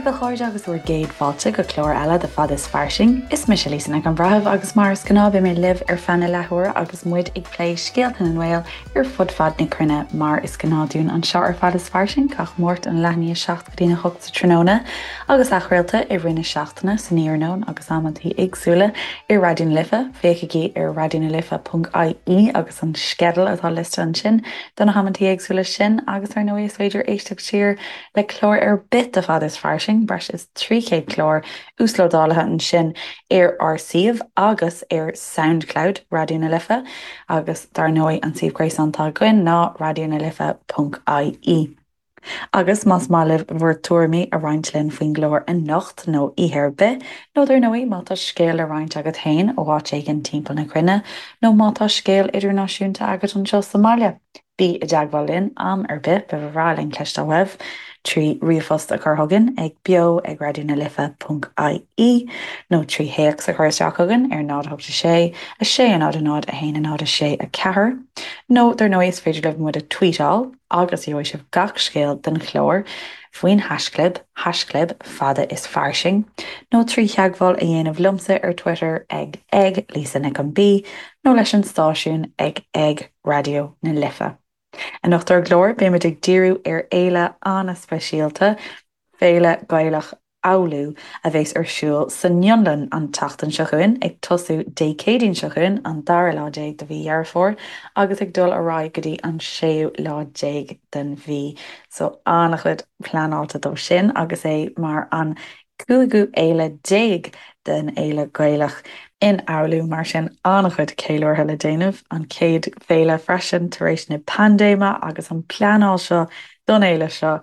a chairde agus bhur gcéad fáilte go clár eile de Fad is Fairsing. Is mise Lisa Nic an Bhreithimh agus mar is gnáth beidh mé libh ar feadh na leathuaire agus muid ag plé scéalta na nGael ar fud fad na cruinne mar is gnáth dúinn anseo ar Fad is Fairsing gach Máirt ón leath i ndiaidh 7 go dtí a 8 sa tráthnóna agus athchraolta i rith na seachtaine san iarnóin agus amantaí éagsúla ar Raidió na Life. Féachaigí ar raidionalife.ie agus an sceideal atá liosta ansin do na hamantaí éagsúla sin agus ar ndóigh is féidir éisteacht siar le clár ar bith de Fad is Fairsing, breis is 300 clár uaslódálaithe ansin ar ár suíomh agus ar Soundcloud Raidió na Life agus dar ndóigh an suíomh gréasáin atá againn ná raidionalife.ie. Agus más maith libh bhur tuairimí a roinnt linn faoin gclár anocht nó oíche ar bith, nó dar ndóigh má tá scéal le roinnt agat féin ó áit éigin timpeall na cruinne, nó má tá scéal idirnáisiúnta agat anseo sa mbaile, Bí i dteagmháil linn am ar bith, ba bhreá linn cloisteáil uaibh, trí ríomhphost a chur chugainn ag beo ag raidionalife.ie nó trí théacs a chur isteach chugainn ar 0 8 6 6 0 0 1 0 6 4 nó dar ndóigh is féidir libh muid a tweetáil agus gheobhaidh sibh gach scéal den chlár faoin haischlib, haischlib fada is fairsing, nó trí theagmháil a dhéanamh liomsa ar Twitter ag ag Lisa Nic an B nó leis an stáisiún ag ag Raidió na Life. Anocht ar an gclár, beimid ag díriú ar fhéile an-speisialta, Féile Ghaelach Oulu, a bheas ar siúl san Fhionlainn an tseachtain seo chugainn, ag tosú Dé Céadaoin seo chugainn, an dara lá déag de mhí Dheireadh Fómhair, agus ag dul ar aghaidh go dtí an séú lá déag den mhí. So, an-chuid pleanáilte dó sin, agus é mar an cúigiú fhéile déag den Fhéile Ghaelach in Oulu, mar sin an-chuid ceiliúrtha le déanamh, an chéad féile freisin tar éis na paindéime agus an pleanáil seo don fhéile seo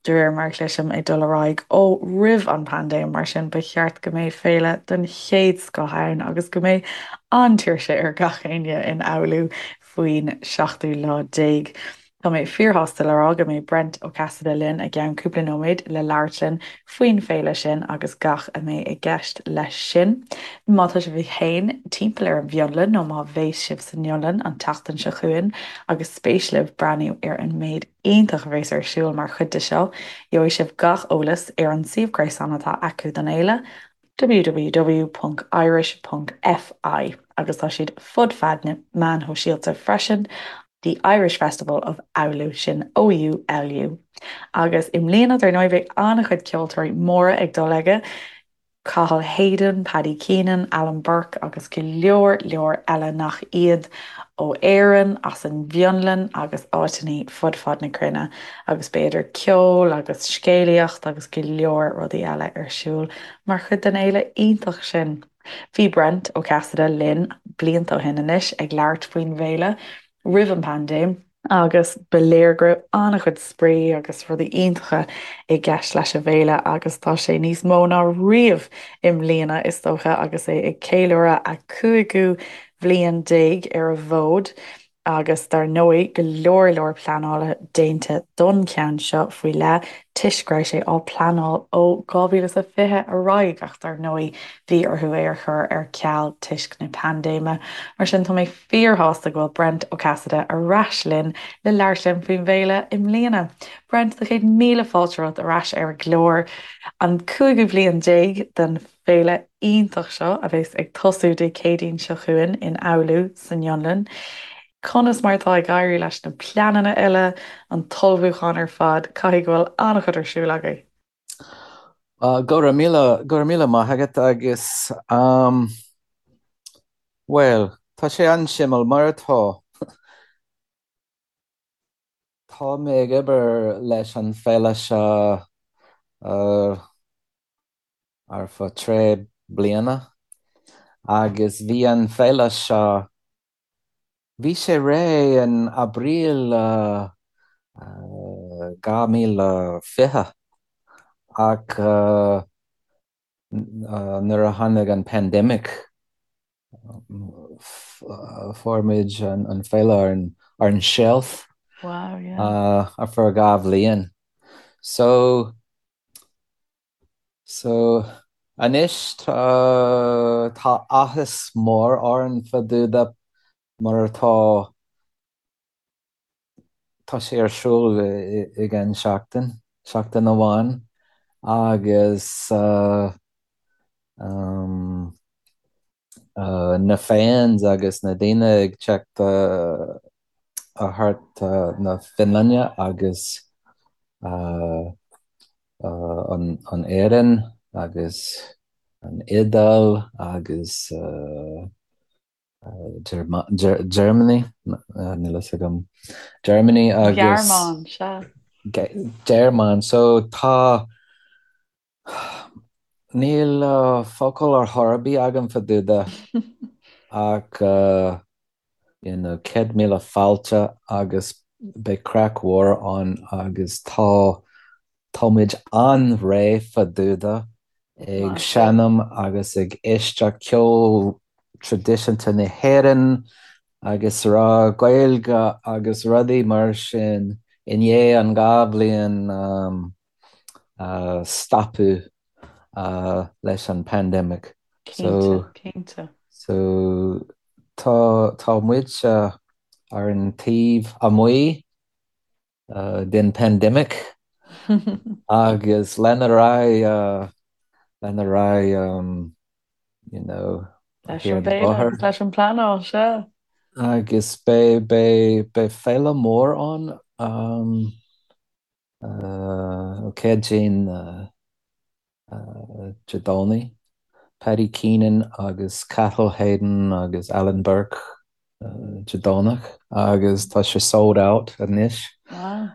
de réir mar a chloisim ag dul ar aghaidh ó roimh an paindéim, mar sin ba cheart go mbeidh féile den chéad scoth ann agus go mbeidh an-tuirse ar gach éinne in Oulu faoin seachtú lá déag. Tá mé fíorshásta le rá go mbeidh Brent Ó Casaide linn i gceann cúpla nóiméad le labhairt linn faoin bhféile sin agus gach a mbeidh i gceist leis sin. Má tá sibh féin timpeall ar an bhFionlainn nó má bheas sibh san Fhionlainn an tseachtain seo chugainn agus spéis libh breathnú ar an méid iontach a bheas ar siúl mar chuid de seo, gheobhaidh sibh gach eolas ar an suíomh gréasáin atá acu don fhéile, www.irish.fi agus tá siad fud fad na meáin shóisialta freisin, The Irish Festival of Oulu, sin OULU. Agus i mbliana, dar ndóigh, beidh an-chuid ceoltóirí móra ag dul aige, Cathal Hayden, Paddy Keenan, Alan Burke agus go leor leor eile nach iad, ó Éirinn, as an bhFionlainn agus áiteanna fud fad na cruinne agus beidh idir ceol agus scéalaíocht agus go leor rudaí eile ar siúl mar chuid den fhéile iontach sin. Bhí Brent Ó Casaide linn blianta ó shin anois ag labhairt faoin bhféile roimh an bpaindéim agus ba léir go raibh an-chuid spraoi agus rudaí iontacha i gceist leis an bhféile agus tá sé níos mó ná riamh i mbliana is dócha agus é ag ceiliúradh a cúigiú bhliain déag ar an bhfód agus dar ndóigh go leor leor pleanála déanta don cheann seo faoi leith toisc go raibh sé á pleanáil ó 2020 ar aghaidh ach dar ndóigh bhí orthu é a chur ar ceal toisc na paindéime. Mar sin tá mé fíorshásta go bhfuil Brent Ó Casaide ar ais linn le labhairt linn faoin bhféile i mbliana. Brent, tá 100,000 fáilte romhat ar ais ar an gclár, an cúigiú bliain déag den féile iontach seo a bheas ag tosú Dé Céadaoin seo chugainn in Oulu san Fhionlainn. Conas mar atá ag éirí leis na pleananna uile, an t-ullmhúchán ar fad? Caithfidh go bhfuil an-chuid ar siúl agaibh. Go raibh míle, go raibh míle maith agat agus um, bhuel, tá sé an-suimiúil mar atá. Tá mé ag obair leis an féile seo uh, ar feadh trí bliana agus bhí an féile seo, bhí sé réidh in Aibreán 2020 ach nuair a tháinig an pandemic fuair muid an féile ar an shelf Wow, yeah. ar feadh dhá bhliain. So So, anois tá, tá áthas mór orainn fá dtaobh de mar atá, tá sé ar siúl i gceann seachtain, seachtain amháin. Agus um, na fans agus na daoine ag teacht thart na Fionlainne agus an Éirinn agus an Iodáil agus Germany, níl fhios agam, Germany agus. Gearmáin, sea. Gearmáin, so tá, níl focal ar chor ar bith agam fá dtaobh de ach you know 100,000 fáilte agus beidh craic mhór ann agus tá tá muid an-réidh fá dtaobh de ag seinm agus ag éisteacht ceol traidisiúnta na hÉireann agus rá Gaeilge agus rudaí mar sin i ndiaidh an 2 bhliain stopadh leis an pandemic. Cinnte, cinnte. So tá tá muid ar an taobh amuigh den pandemic agus lena raghaidh lena raghaidh you know Leis an bhféile agus leis an bpleanáil, sea. Agus beidh beidh beidh féile mór ann. Céadaoin Dé Domhnaigh, Paddy Keenan agus Cathal Hayden agus Alan Burke Dé Domhnach agus tá sé sold out anois. Wow.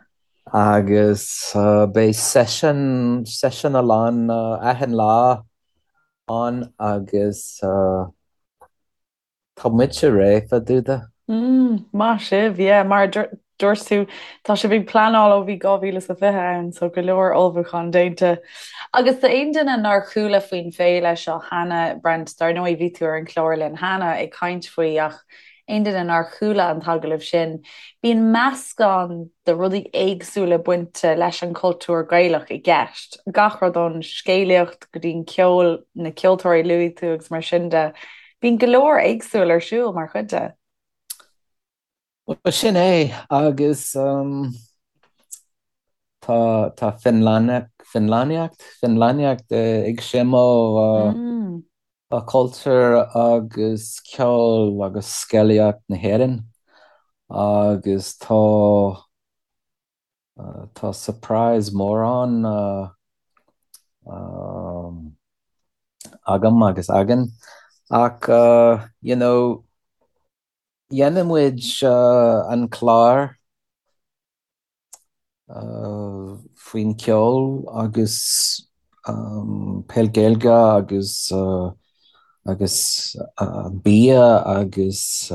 Agus beidh session, session a lán achan lá ann agus Tá muide réidh fá dtaobh de. Mm, maith sibh, yeah, mar a dúirt tú, tá sibh ag pleanáil ó bhí 2020 ann, so go leor ullmhúchán déanta. Agus d'aon duine nár chuala faoin féile seo cheana, Brent, dar ndóigh bhí tú ar an chlár linn cheana ag caint faoi ach aon duine nár chuala an t-agallamh sin, bíonn meascán de rudaí éagsúla bainte leis an chultúr Gaelach i gceist, gach rud ón scéalaíocht go dtí an ceol, na ceoltóirí a luaigh tú agus mar sin de. Bíonn go leor éagsúil ar siúl mar chuid de. Bhuel, sin é, agus tá tá Fionlainneacht, Fionlainneacht, Fionlainneacht ag seimill cultúr agus ceol agus scéalaíocht na hÉireann agus tá Tá surprise mór ann agam agus againn ach you know dhéanfaidh muid an clár faoin ceol agus peil Gaeilge agus agus bia agus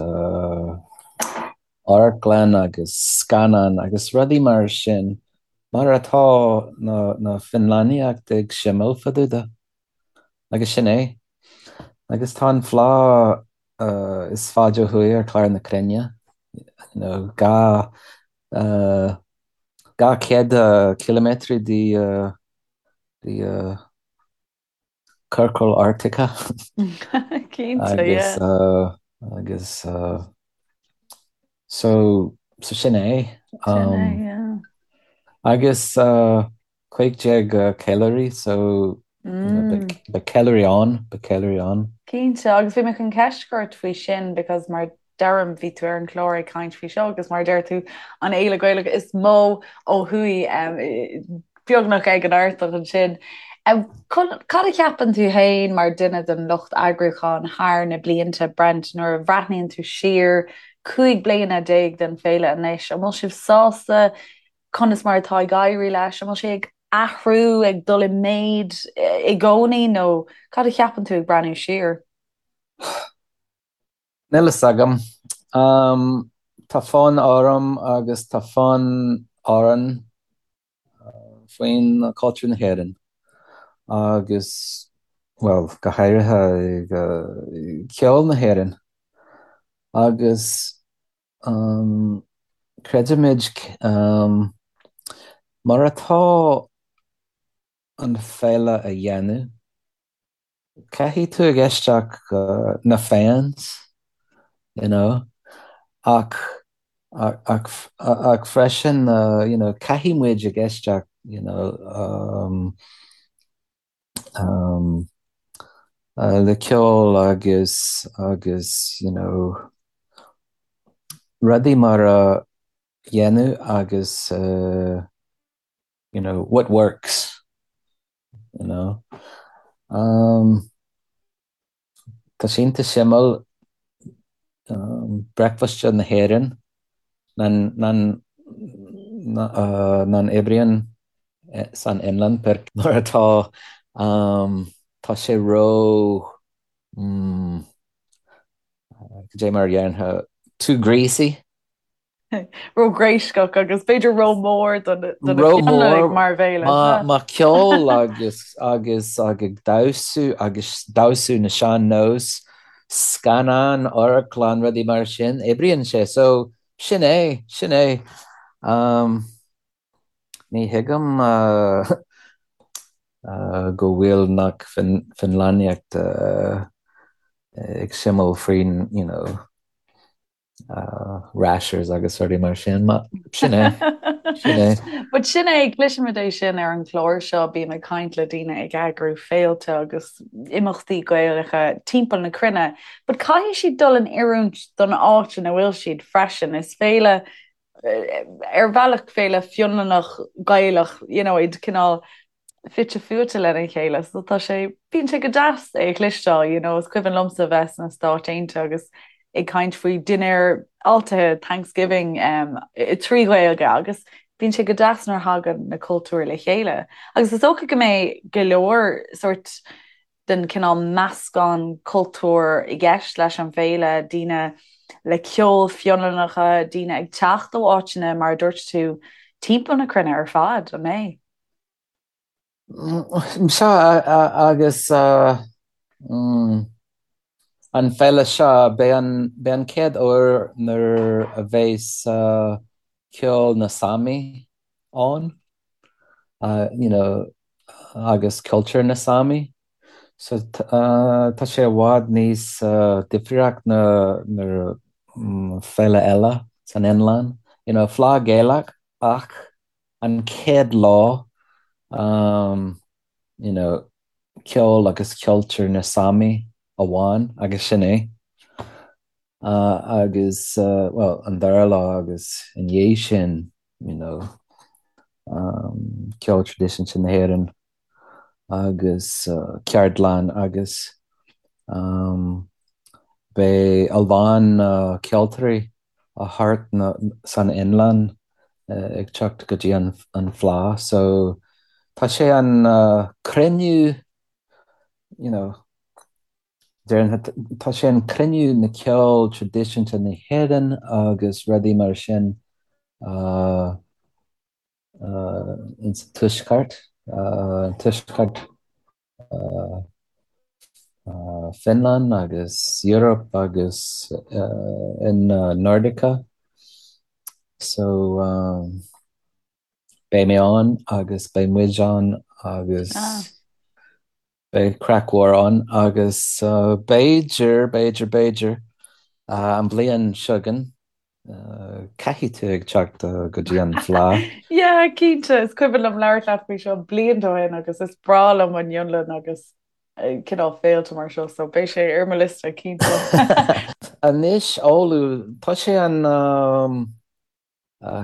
amharclann agus scannán agus rudaí mar sin, mar atá na Fionlainneacht ag seimill fá dtaobh de. Agus sin é. Agus tá an fleá is faide ó thuaidh ar chlár na cruinne, you know, 200 ciliméadar de de Ciorcal Artach Cinnte, agus yeah. agus so so sin é. Sin é, yeah. Agus 15 ceiliúraí so you know beidh beidh ceiliúraí ann, beidh ceiliúraí ann. Cinnte, agus bhí mé chun ceist a chur ort faoi sin because mar deirim, bhí tú ar an chlár ag caint faoi seo agus mar a deir tú, an fhéile Gaelach is mó ó thuaidh, beagnach ag an Artach ansin. Cad a cheapann tú féin mar duine den lucht eagrúcháin thar na blianta, Brent, nuair a bhreathnaíonn tú siar 15 bliana den féile anois, an bhfuil sibh sásta conas mar atá ag éirí leis? An bhfuil sé ag athrú, ag dul i méid i gcónaí nó cad a cheapann tú ag breathnú siar? Níl fhios agam. Tá fonn orm agus tá fonn orainn faoin cultúr na hÉireann agus, bhuel, go háirithe ceol na hÉireann. Agus creidimid mar atá an féile a dhéanamh, Caithfidh tú ag éisteacht na fans, you know, ach ach ach freisin, you know, caithfidh muid ag éisteacht, you know, um. Um, le ceol agus agus you know rudaí mar a dhéanamh agus uh, you know what works you know. Um, tá sé iontach suimiúil um, bricfeasta na hÉireann nach nach oibríonn san Fhionlainn mar atá um, tá sé ró mm, cad é mar a déarfá too greasy. Ró-ghréasach agus b'fhéidir ró-mhór do na Fionlannaigh mar bhéile. Má ceol agus agus ag damhsú agus damhsú na sean-nós, scannán, amharclann, rudaí mar sin, oibríonn sé. So, sin é, sin é. Um, ní thuigim uh, uh, go bhfuil nach Fionlannaíocht uh, ag suimiúil faoin, you know, rashers agus rudaí mar sin, ma sin é, sin é. But sin é, cloisimid é sin ar an chlár seo, bím ag caint le daoine ag eagrú féilte agus imeachtaí Gaelacha timpeall na cruinne, but caithfidh siad dul in oiriúint don áit ina bhfuil siad freisin. Is féile, ar bhealach féile Fionlannach Gaelach, you know, iad cineál fite fuaite lena chéile so tá sé, bíonn sé go deas é a chloisteáil, you know, is cuimhin liomsa bheith sna Stáit Aontaithe agus ag caint faoi dinnéar fáiltithe Thanksgiving um, trí Ghaeilge agus bíonn sé go deas nuair a thagann na cultúir le chéile. Agus is dócha go mbeidh go leor sort den cineál meascán cultúr i gceist leis an bhféile, daoine le ceol Fionlannacha, daoine ag teacht ó áiteanna mar a dúirt tú timpeall na cruinne ar fad, an mbeidh? Sea, agus an féile seo, beidh an, beidh an chéad uair nuair a bheas ceol na Sámi ann, you know, agus cultúr na Sámi. So tá sé i bhfad níos difríocht na na féile eile san Fhionlainn. You know, Fleadh Gaelach ach an chéad lá um you know ceol agus cultúr na Sámi amháin agus sin é. Uh, agus uh, well, an dara lá agus i ndiaidh sin you know, um, ceol traidisiúnta na hÉireann agus uh, ceardlann agus um, beidh a lán uh, ceoltóirí ó thart na, san Fhionlainn ag teacht go dtí an Fleadh so tá sé an cruinniú you know déarfainn tá sé an cruinniú na ceol traidisiúnta na hÉireann agus rudaí mar sin uh, uh, in sa tuaisceart uh, tuaisceart Finland agus Europe agus in Nordica so beidh mé ann agus beidh muid ann agus beidh craic mhór ann agus b'fhéidir, b'fhéidir, b'fhéidir an bhliain seo chugainn Caithfidh tú ag teacht go dtí an Fleadh. Yeah, cinnte. Is cuimhin liom labhairt leat faoi seo blianta ó shin agus is breá liom an Fhionlainn agus cineál féilte mar seo, so beidh sé ar mo liosta, cinnte. Anois, Oulu, tá sé an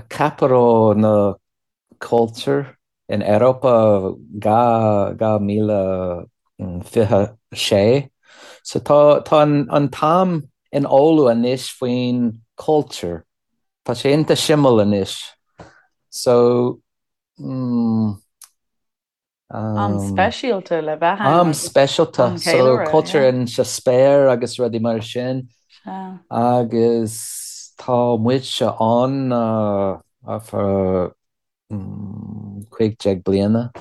capital na culture in Europa 2026. So tá tá an t-am in Oulu anois faoin culture. Tá sé iontach suimiúil anois. So mm, Am speisialta le bheith ann. Am speisialta, so culture in sa spéir agus rudaí mar sin. Agus tá muidse ann ar feadh 15 bliana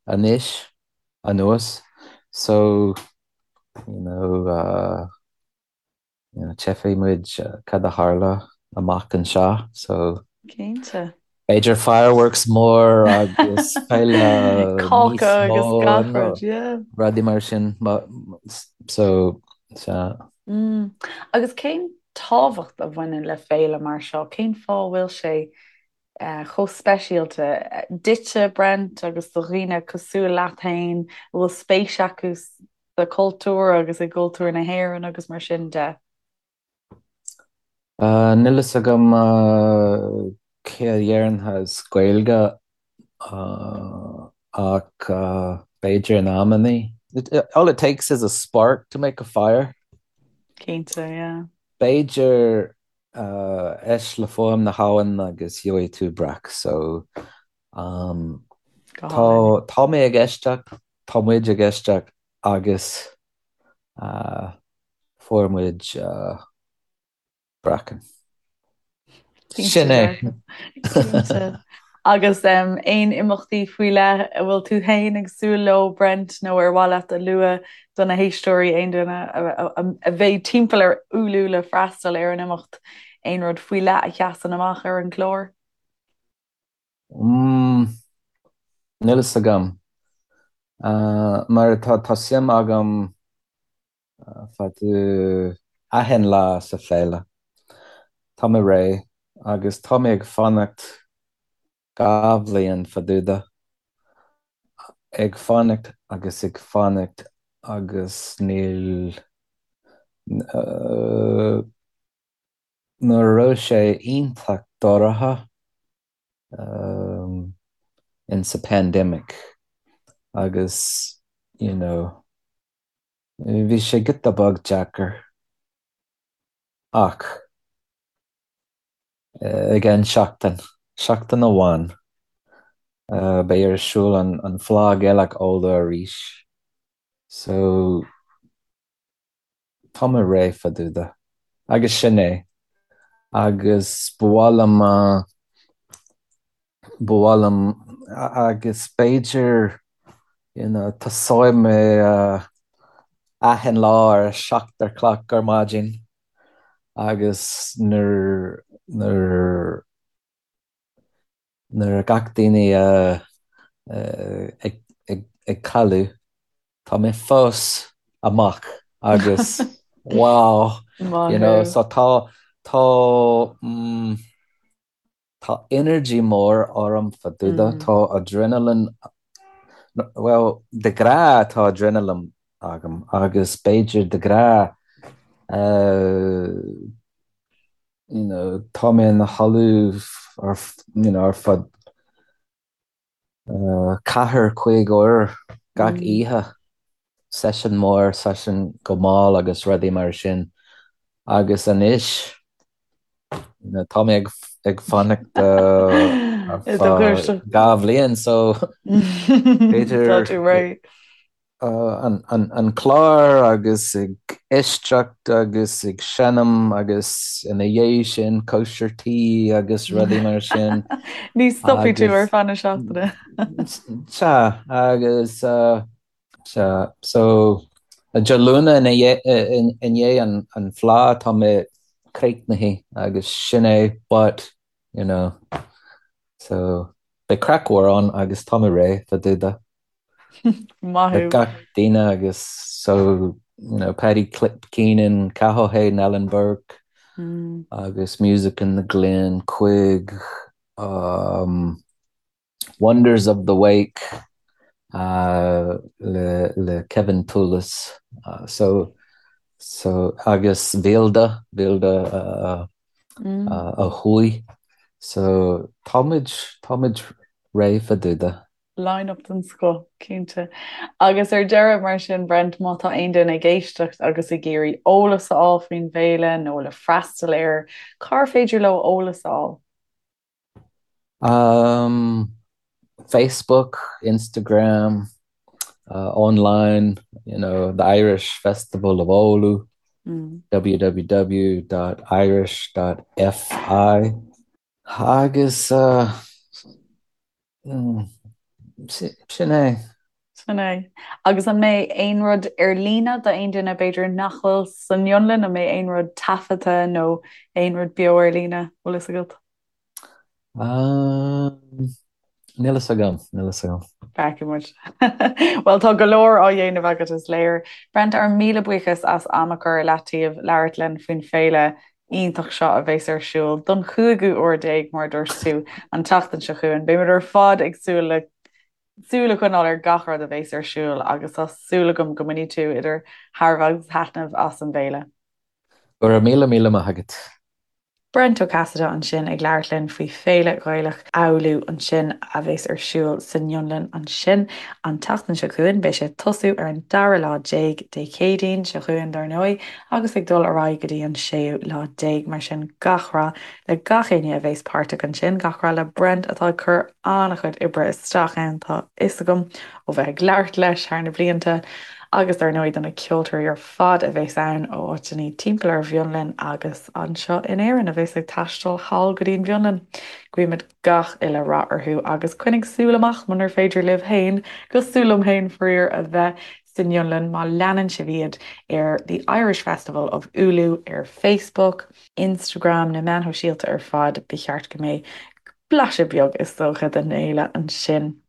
anois anuas. So, you know, uh, you know, tchífidh muid cad a tharla amach anseo, so. Cinnte. B'fhéidir fireworks mór agus féile níos Cáca agus mó gach nó rud, yeah. rudaí mar sin. So, sea. Mm. Agus cén tábhacht a bhaineann le féile mar seo? Cén fáth a bhfuil sé. Chomh speisialta duitse, Brent, agus do dhaoine cosúil leat féin a bhfuil spéis acu sa chultúr agus i gcultúr na hÉireann agus mar sin de. Níl fhios agam cé a deireann as Gaeilge ach b'fhéidir in amannaí. All it takes is a spark to make a fire. Cinnte, yeah. B'fhéidir éist le fuaim na habhann agus gheobhaidh tú breac so Go tá hálainn. tá mé ag éisteacht, tá muid ag éisteacht agus fuair muid breacann. Cinnte Sin é. dearfa. Cinnte. Agus aon imeachtaí faoi leith a bhfuil tú féin ag súil leo, Brent, nó ar mhaith leat a lua do na héisteoirí, aon duine a bheidh timpeall ar Oulu le freastal ar an imeacht, aon rud faoi leith a sheasann amach ar an gclár? Mm, níl fhios agam. Mar tá tá suim agam fadú achan lá sa féile. Tá mé réidh agus tá mé ag fanacht 2 bhliain fadúda. Ag fanacht agus ag fanacht agus níl nuair a raibh sé iontach dorcha in sa pandemic agus you know Bhí sé giota beag deacair ach i gceann seachtain, seachtain amháin, beidh ar siúl an Fleadh Gaelach Oulu arís so tá mé réidh fadúda agus sin é agus ba mhaith liom Ba mhaith liom agus b'fhéidir you know tosóidh mé achan lá ar a 7 a chlog ar maidin agus nuair nuair nuair a gach daoine ag ag ag codladh tá mé fós amach agus wow Maith you know thú. so tá tá mm, Tá energy mór orm fadúda, tá adrenaline, bhuel, de ghnáth tá adrenaline agam agus b'fhéidir de ghnáth you know tá mé ina chodladh ar you know ar fud 4, 5 uair gach oíche, seisiún mór, seisiún go mall agus rudaí mar sin. Agus anois, tá mé ag fanacht ar feadh 2 bhliain so b'fhéidir Tá tú réidh. an clár agus ag éisteacht agus ag seinm agus ina dhiaidh sin cóisir tí agus rudaí mar sin. Ní stopfaidh tú ar feadh na seachtaine. Sea, agus sea, so Dé Luain i ndiaidh an Fleadh tá mé críochnaithe agus sin é but, you know, so beidh craic mhór ann agus tá mé réidh fadúda. Maith Le thú. gach duine agus so you know Paddy Keenan, Cathal Hayden, Alan Burke agus Music in the Glen, Quig, um, Wonders of the Wake uh, le, le Kevin Toolis uh, so so agus Vilda, Vilda uh, uh, ó thuaidh so táimid táimid réidh fadúda. Line-up den scoth, cinnte. Agus ar deireadh, mar sin, Brent, má tá aon duine ag éisteacht agus ag iarraidh eolas a fháil faoin bhféile nó le freastal air, cár féidir leo eolas a fháil? Um, Facebook, Instagram, uh, online, you know, the Irish Festival of Oulu, Mm. www.irish.fi. Agus uh, sin é. Sin é. Agus an mbeidh aon rud ar líne d'aon duine b'fhéidir nach bhfuil san Fhionlainn, an mbeidh aon rud taifeadta nó aon rud beo ar líne, bhfuil fhios agat? Níl fhios agam, níl fhios agam. Feicfidh muid. Bhuel, tá go leor á dhéanamh agat, is léir. Brent, ár míle buíochas as am a chur i leataobh labhairt linn faoin féile. iontach seo a bheas ar siúl don chúigiú huair déag, mar a dúirt tú, an tseachtain seo chugainn. Beimid ar fad ag súil le súil a choinneáil ar gach rud a bheas ar siúl agus tá súil agam go mbainfidh tú idir thairbhe agus thaitneamh as an bhféile. Go raibh míle míle maith agat. Brent Ó Casaide ansin ag labhairt linn faoi Féile Ghaelach Oulu ansin a bheas ar siúl san Fhionlainn ansin an tseachtain seo chugainn. Beidh sé ag tosú ar an dara lá déag, Dé Céadaoin seo chugainn dar ndóigh, agus ag dul ar aghaidh go dtí an séú lá déag. Mar sin gach rath le gach éinne a bheas páirteach ansin, gach rath le Brent atá ag cur an-chuid oibre isteach ann, tá fhios agam ó bheith ag labhairt leis thar na blianta, agus dar ndóigh do na ceoltóirí ar fad a bheas ann ó áiteanna timpeall ar an bhFionlainn agus anseo in Éirinn a bheas ag taisteal thall go dtí an bhFionlainn. Guímid gach uile rath orthu agus coinnigh súil amach munar féidir libh féin, cosúil liom féin faraor, a bheith san Fhionlainn má leanann sibh iad ar The Irish Festival of Oulu ar Facebook, Instagram, na meáin shóisialta ar fad, ba cheart go mbeidh blaiseadh beag is dócha den fhéile ansin.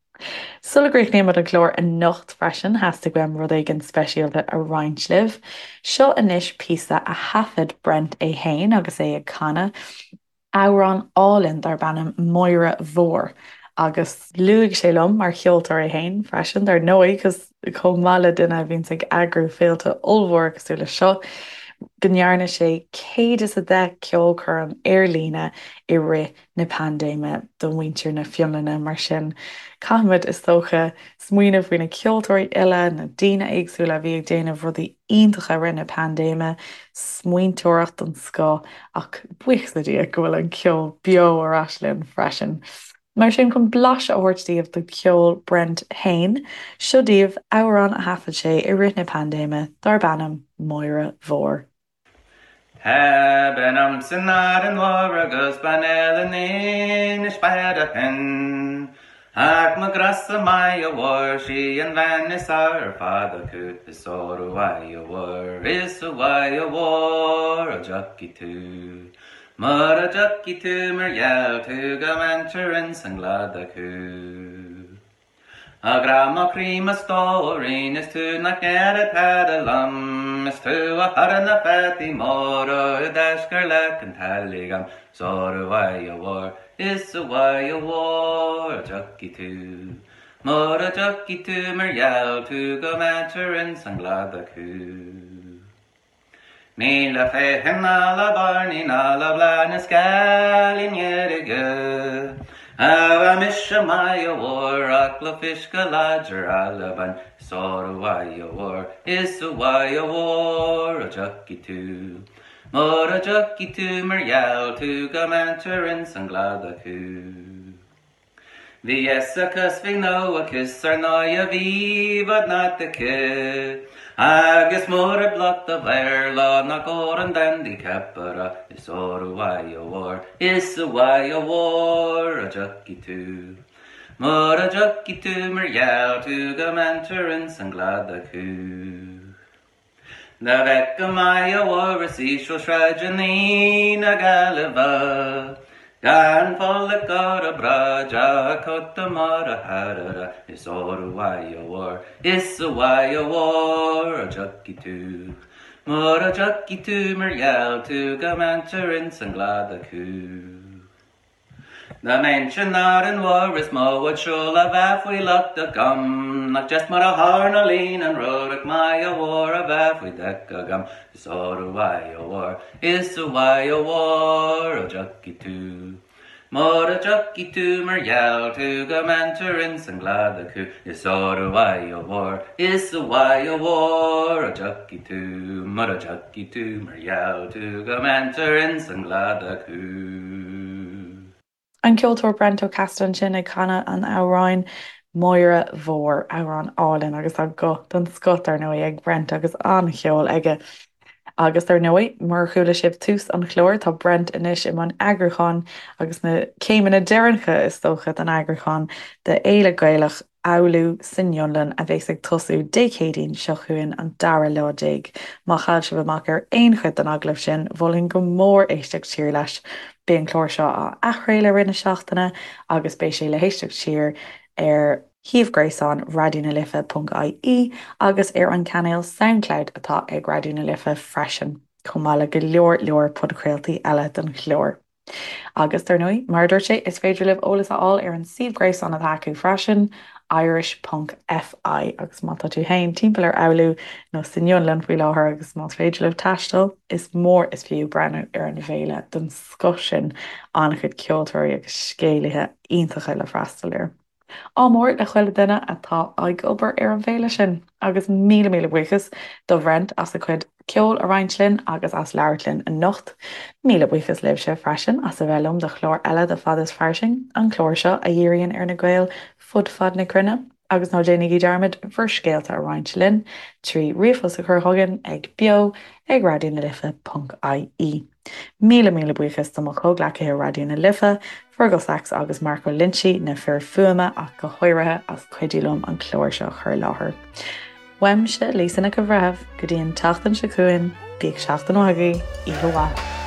Sula gcríochnaímid an clár anocht freisin, theastaigh uaim rud éigin speisialta a roinnt libh. Seo anois píosa a thaifead Brent é fhéin agus é ag canadh amhrán álainn darb ainm 'Máire Mhór' agus luaigh sé liom, mar cheoltóir é fhéin freisin, dar ndóigh, chomh maith le duine a bhíonns ag eagrú féilte ollmhóra cosúil leis seo, go ndearna sé 110 ceolchoirm ar líne i rith na paindéime do mhuintir na Fionlainne. Mar sin, caithfimid, is dócha, smaoineamh faoi na ceoltóirí uile, na daoine éagsúla a bhí ag déanamh rudaí iontacha i rith na paindéime, smaointeoireacht den scoth, ach buíochas le Dia go bhfuil an ceol beo ar ais linn freisin. Mar sin, chun blaiseadh a thabhairt daoibh de cheol Brent fhéin, seo daoibh amhrán a thaifead sé i rith na paindéime darb ainm 'Máire Mhór'. Tá bean a'm san Árainn Mhór agus bean eile in Inis Bearthain. Ach mo ghrá-sa Máire Mhór sí an bhean is fearr ar fad acu is óró a Mháire Mhór is a Mháire Mhór a dtiocfaidh tú. Mura dtiocfaidh tú mar gheall tú go mbaintear ins an gcladach thú. A ghrá mo chroí mo stóirín is tú nach ndéarfadh tada liom Is tú a chuireann na fataí móra i dtaisce leac an teallaigh a'm 'S óró a Mháire Mhór is a Mháire Mhór a dtiocfaidh tú Mura dtiocfaidh tú mar gheall tú go mbaintear ins an gcladach thú. Ní le feithim ná le bairnigh ná le bláth na scealaí ndeirge A bheidh mise Máire Mhór ach le fuisce láidir Alban 'S óró a Mháire Mhór is a Mháire Mhór a dtiocfaidh tú Mura dtiocfaidh tú mar gheall tú go mbaintear ins an gcladach thú. Bhí fhios aici 's bhí gnó aici 's ar ndóighe bhí bhad not aici Agus mura bloc do Bhéarla ná Gordon Dandy ceapaire Is óró a Mháire Mhór is a Mháire Mhór a dtiocfaidh tú Mura dtiocfaidh tú mar gheall tú go mbaintear ins an gcladach thú. Dá bhfeicfeá Máire Mhór is íseal sráideanna na Gaillimhe, Gan folach ar a bráid ach cóta mór a tharara, Is óró a Mháire Mhór, is a Mháire Mhór a dtiocfaidh tú. Mura dtiocfaidh tú mar gheall tú go mbaintear ins an gcladach thú. Dá mbeinnse in Árainn Mhór is mó bhád seoil a bheadh faoi lucht agam Nach deas mar a tharlaíonn an rud ach Máire Mhór a bheith faoi deic agam Is óró a Mháire Mhór, is a Mháire Mhór a dtiocfaidh tú Mura dtiocfaidh tú mar gheall tú go mbaintear ins an gcladach thú Is óró a Mháire Mhór, is a Mháire Mhór a dtiocfaidh tú Mura dtiocfaidh tú mar gheall tú go mbaintear ins an gcladach thú. An ceoltóir Brent Ó Casaide ansin ag canadh an amhráin 'Máire Mhór', amhrán álainn agus tá guth den scoth dar ndóigh ag Brent agus an-cheol aige. Agus dar ndóigh, mar a chuala sibh tús an chláir, tá Brent anois i mbun eagrúcháin agus na céimeanna deireanacha is dócha den eagrúchán de Fhéile Gaelach Oulu san Fhionlainn a bheas ag tosú Dé Céadaoin seo chugainn an dara lá déag. Má chaill sibh amach ar aon chuid den agallamh sin, mholfainn go mór éisteacht siar leis. Beidh an clár seo á athchraoladh i rith na seachtaine agus beidh sé le héisteacht siar ar shuíomh gréasáin Raidió na Life ponc ie agus ar an cainéal Soundcloud atá ag Raidió na Life freisin. Chomh maith le go leor leor podchraoltaí eile don chlár. Agus, dar ndóigh, mar a dúirt sé, is féidir libh eolas a fháil ar an suíomh gréasáin atá acu freisin, irish ponc fi, agus má tá tú féin timpeall ar Oulu nó san Fhionlainn faoi láthair agus más féidir libh taisteal, is mór is fiú breathnú ar an bhféile den scoth sin, an-chuid ceoltóirí agus scéalaithe iontacha le freastal air. Ádh mór le chuile duine atá ag obair ar an bhféile sin agus míle míle buíochas do Bhrent as a chuid ceoil a roinnt linn agus as labhairt linn anocht. Míle buíochas libhse freisin as a bheith liom do chlár eile de Fad is Fairsing, an clár seo a dhíríonn ar na Gaeil fud fad na cruinne. Agus ná déanaigí dearmad bhur scéalta a roinnt linn trí ríomhphost a chur chugainn ag beo ag raidionalife ponc ie. Míle míle buíochas do mo chomhghleacaithe Raidió na Life, Fergal Sachs agus Marco Linci, na fir fuaime ach go háirithe, as cuidiú liom an clár seo a chur i láthair. Uaimse, Lisa Nic an Bhreithimh, go dtí an tseachtain seo chugainn, bíodh seachtain mhaith agaibh, oíche mhaith.